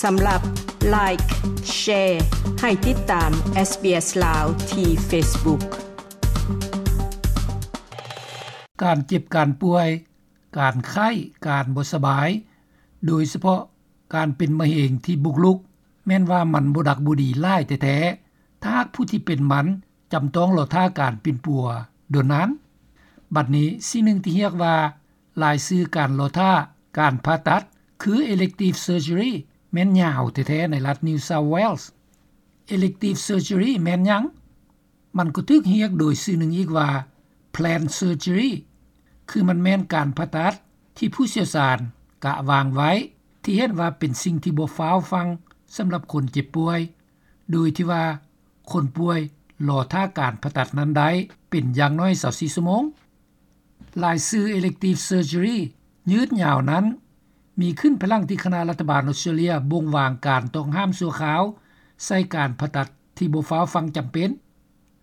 ສຳລັບ Like, Share ໃຫ້ຕິດຕາມ SBS ລາວ ທີ່ Facebook. ການເຈັບການປ່ວຍ, ການໄຂ້, ການບໍ່ສະບາຍ, ໂດຍສະເພາະການເປັນມະເຮັງທີ່ບຸກລຸກ, ແມ່ນວ່າມັນບໍ່ດັກບໍ່ດີຫຼາຍແທ້ໆ ຖ້າຫາກຜູ້ທີ່ເປັນມັນຈຳຕ້ອງລໍຖ້າການປິ່ນປົວດົນນານ. ບັດນີ້, ສິ່ງໜຶ່ງທີ່ຮຽກວ່າລາຍຊື່ການລໍຖ້າການຜ່າຕັດ ຄື elective surgery ແມ່ນຍາວແທ້ໆ ໃນລັດ New South Wales. Elective surgery ແມ່ນຫຍັງ? ມັນກໍຖືກຮຽກໂດຍຊື່ໜຶ່ງອີກວ່າ planned surgery ຄືມັນແມ່ນການຜ່າຕັດທີ່ຜູ້ຊ່ຽວຊານກະວາງໄວ້ ທີ່ເຫັນວ່າເປັນສິ່ງທີ່ບໍ່ຟ້າວຟັ່ງສຳລັບຄົນເຈັບປ່ວຍ, ໂດຍທີ່ວ່າຄົນປ່ວຍລໍຖ້າການຜ່າຕັດນັ້ນໄດ້ເປັນຢ່າງໜ້ອຍຊາວສີ່ຊົ່ວໂມງ. ລາຍຊື່ elective surgery ຍືດຍາວນັ້ນ ມີຂຶ້ນພາຍຫຼັງທີ່ຄະນະລັດຖະບານອົດສະຕຣາເລຍບົ່ງວາງການຕ້ອງຫ້າມຊົ່ວຄາວໃສ່ການຜ່າຕັດທີ່ບໍ່ຟ້າວຟັ່ງຈຳເປັນ.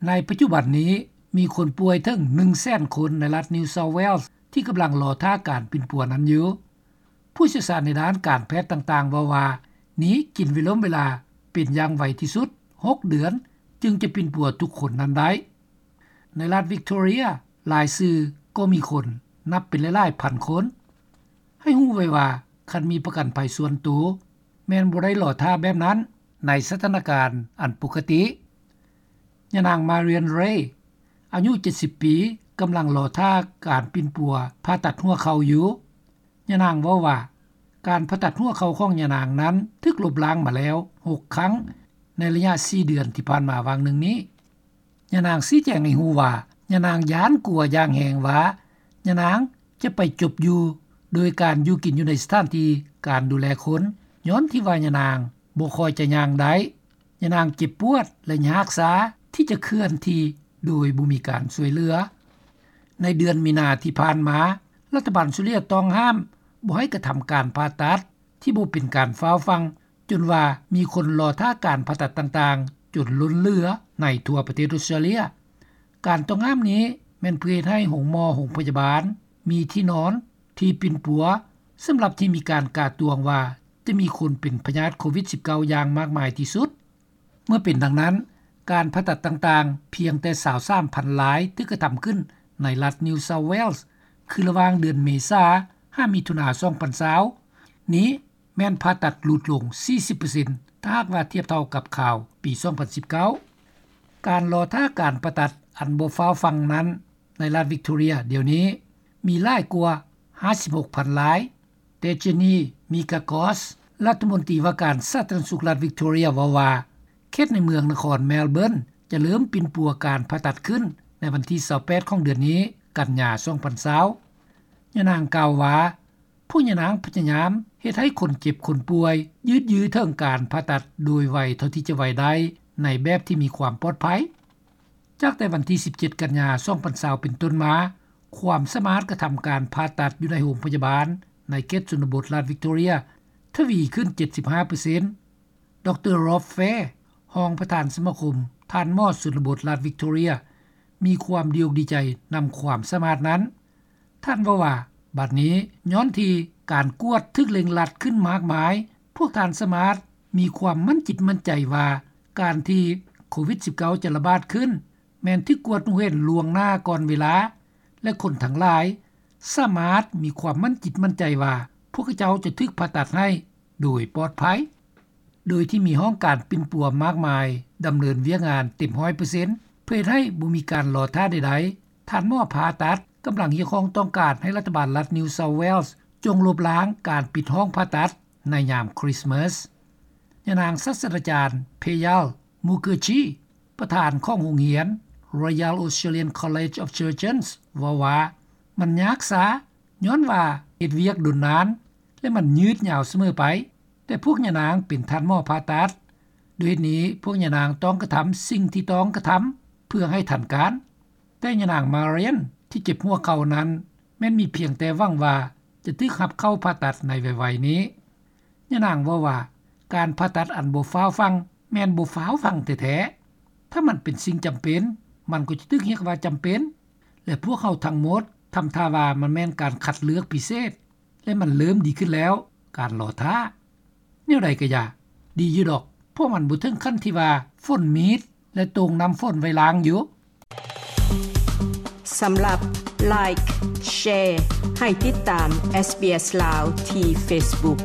ໃນປັດຈຸບັນນີ້ ມີຄົນປ່ວຍເຖິງໜຶ່ງແສນຄົນໃນລັດ New South Wales ທີ່ກຳລັງລໍຖ້າການປິ່ນປົວນັ້ນຢູ່. ຜູ້ຊ່ຽວຊານໃນດ້ານການແພດຕ່າງໆເວົ້າວ່າ ນີ້ກິນເວລົມເວລາເປັນຢ່າງໄວທີ່ສຸດຫົກເດືອນ ຈຶ່ງຈະປິ່ນປົວທຸກຄົນນັ້ນໄດ້. ໃນລັດ Victoria ລາຍຊື່ກໍມີຄົນນັບເປັນຫຼາຍໆພັນຄົນ. ໃຫ້ຮູ້ໄວ້ວ່າ ຄັນມີປະກັນໄພສ່ວນໂຕ ແມ່ນບໍ່ໄດ້ລໍຖ້າແບບນັ້ນໃນສະຖານະການອັນປົກກະຕິ. ຍານາງ Marian Ray ອາຍຸເຈັດສິບປີ ກຳລັງລໍຖ້າການປິ່ນປົວຜ່າຕັດຫົວເຂົ່າຢູ່. ຍານາງເວົ້າວ່າ ການຜ່າຕັດຫົວເຂົ່າຂອງຍານາງນັ້ນຖືກລົບລ້າງມາແລ້ວຫົກຄັ້ງ ໃນໄລຍະສີ່ເດືອນທີ່ຜ່ານມາຫວ່າງໜຶ່ງນີ້. ຍານາງຊີ້ແຈງໃຫ້ຮູ້ວ່າ ຍານາງຢ້ານກົວຢ່າງແຮງວ່າ ຍານາງຈະໄປຈົບຢູ່ໂດຍການຢູ່ກິນຢູ່ໃນສະຖານທີ່ການດູແລຄົນ ຍ້ອນທີ່ວ່າຍານາງບໍ່ຄ່ອຍຈະຍ່າງໄດ້. ຍານາງເຈັບປວດ ແລະ ຍາກຊາທີ່ຈະເຄື່ອນທີ່ໂດຍບໍ່ມີການຊ່ວຍເຫຼືອ. ໃນເດືອນມີນາທີ່ຜ່ານມາ, ລັດຖະບານອົດສະຕຣາເລຍຕ້ອງຫ້າມບໍ່ໃຫ້ກະທຳການຜ່າຕັດທີ່ບໍ່ເປັນການຟ້າວຟັ່ງ ຈົນວ່າມີຄົນລໍຖ້າການຜ່າຕັດຕ່າງໆຈົນລົ້ນເຫຼືອໃນທົ່ວປະເທດອົດສະຕຣາເລຍ. ການຕ້ອງຫ້າມນີ້ແມ່ນເພື່ອເຮັດໃຫ້ໂຮງໝໍ, ໂຮງພະຍາບານ ມີທີ່ນອນທີ່ປິ່ນປົວ ສຳລັບທີ່ມີການກາດຕວງວ່າຈະມີຄົນເປັນພະຍາດໂຄວິດສິບເກົ້າຢ່າງມາກມາຍທີ່ສຸດ. ເມື່ອເປັນດັ່ງນັ້ນ, ການຜ່າຕັດຕ່າງໆພຽງແຕ່ຊາວສາມພັນລາຍຖືກກະທຳຂຶ້ນໃນລັດ New South Wales ຄືລະຫວ່າງເດືອນເມສາຫາມິຖຸນາສອງພັນຊາວນີ້ ແມ່ນຜ່າຕັດຫຼຸດລົງສີ່ສິບເປີເຊັນ ຖ້າຫາກວ່າທຽບເທົ່າກັບຄາວປີສອງພັນສິບເກົ້າ. ການລໍຖ້າການຜ່າຕັດອັນບໍ່ຟ້າວຟັ່ງນັ້ນ ໃນລັດ Victoria ດຽວນີ້ມີຫຼາຍກວ່າຫ້າສິບຫົກພັນລາຍ. ແຕ່ Jenny Mikakos ລັດຖະມົນຕີວ່າການສາທາລະນະສຸກລັດ Victoria ເວົ້າວ່າ ເຂດໃນເມືອງນະຄອນ Melbourne ຈະເລີ່ມປິ່ນປົວການຜ່າຕັດຂຶ້ນໃນວັນທີຊາວແປດຂອງເດືອນນີ້ ກັນຍາ ສອງພັນຊາວ. ຍານາງກ່າວວ່າ ພວກຍານາງພະຍາຍາມເຮັດໃຫ້ຄົນເຈັບຄົນປ່ວຍຍືດຢື້ອເຖິງການຜ່າຕັດໂດຍໄວເທົ່າທີ່ຈະໄວໄດ້ ໃນແບບທີ່ມີຄວາມປອດໄພ. ຈາກແຕ່ວັນທີສິບເຈັດ ກັນຍາ ສອງພັນຊາວ ເປັນຕົ້ນມາ, ຄວາມສາມາດກະທຳການຜ່າຕັດຢູ່ໃນໂຮງພະຍາບານໃນເຂດຊົນນະບົດລັດ Victoria ທະວີຂຶ້ນເຈັດສິບຫ້າເປີເຊັນ. ດຣ. Rob Fair ຮອງປະທານສະມາຄົມທ່ານໝໍຊົນນະບົດລັດ Victoria ມີຄວາມດີອົກດີໃຈນຳຄວາມສາມາດນັ້ນ. ທ່ານເວົ້າວ່າ ບັດນີ້ຍ້ອນທີ່ການກວດຖືກເລັ່ງລັດຂຶ້ນມາກມາຍ, ພວກທ່ານສາມາດມີຄວາມໝັ້ນຈິດໝັ້ນໃຈວ່າ ການທີ່ໂຄວິດສິບເກົ້າຈະລະບາດຂຶ້ນ ແມ່ນຖືກກວດຮູ້ເຫັນລ່ວງໜ້າກ່ອນເວລາ ແລະ ຄົນທັງຫຼາຍສາມາດມີຄວາມໝັ້ນຈິດໝັ້ນໃຈວ່າ ພວກເຂົາເຈົ້າຈະຖືກຜ່າຕັດໃຫ້ໂດຍປອດໄພ. ໂດຍທີ່ມີຫ້ອງການປິ່ນປົວມາກມາຍດຳເນີນວຽກງານເຕັມຮ້ອຍເປີເຊັນ ເພື່ອເຮັດໃຫ້ບໍ່ມີການລໍຖ້າໃດໆ, ທ່ານໝໍຜ່າຕັດກຳລັງຮຽກຮ້ອງຕ້ອງການໃຫ້ລັດຖະບານລັດ New South Wales ຈົ່ງລົບລ້າງການປິດຫ້ອງຜ່າຕັດໃນຍາມຄຣິສມາສ. ຍານາງສາດສະດາຈານ Payal Mukherjee ປະທານຂອງໂຮງຮຽນ Royal Australian College of Surgeons ເວົ້າວ່າ ມັນຍາກຊ້າ ຍ້ອນວ່າເຮັດວຽກດົນນານ ແລະ ມັນຍືດຍາວສະເໝີໄປ, ແຕ່ພວກຍານາງເປັນທ່ານໝໍຜ່າຕັດ, ດ້ວຍເຫດນີ້ພວກຍານາງຕ້ອງກະທຳສິ່ງທີ່ຕ້ອງກະທຳເພື່ອໃຫ້ທັນການ. ແຕ່ຍານາງ Marian ທີ່ເຈັບຫົວເຂົ່ານັ້ນ ແມ່ນມີພຽງແຕ່ຫວັງວ່າຈະຖືກຮັບເຂົ້າຜ່າຕັດໃນໄວໆນີ້. ຍານາງເວົ້າວ່າ ການຜ່າຕັດອັນບໍ່ຟ້າວຟັ່ງແມ່ນບໍ່ຟ້າວຟັ່ງແທ້ໆ. ຖ້າມັນເປັນສິ່ງຈຳເປັນ, ມັນກໍຈະຖືກຮຽກວ່າຈຳເປັນ, ແລະ ພວກເຮົາທັງໝົດທຳທ່າວ່າມັນແມ່ນການຄັດເລືອກພິເສດ ແລະ ມັນເລີ່ມດີຂຶ້ນແລ້ວ, ການລໍຖ້າ. ແນວໃດກະຢ່າ ດີຢູ່ດອກ ເພາະມັນບໍ່ເຖິງຂັ້ນທີ່ວ່າຝົນມີດ ແລະໂຕ່ງນ້ຳຝົນໄວ້ລ້າງຢູ່. ສຳລັບ Like Share ໃຫ້ຕິດຕາມ SBS ລາວ ທີ່ Facebook.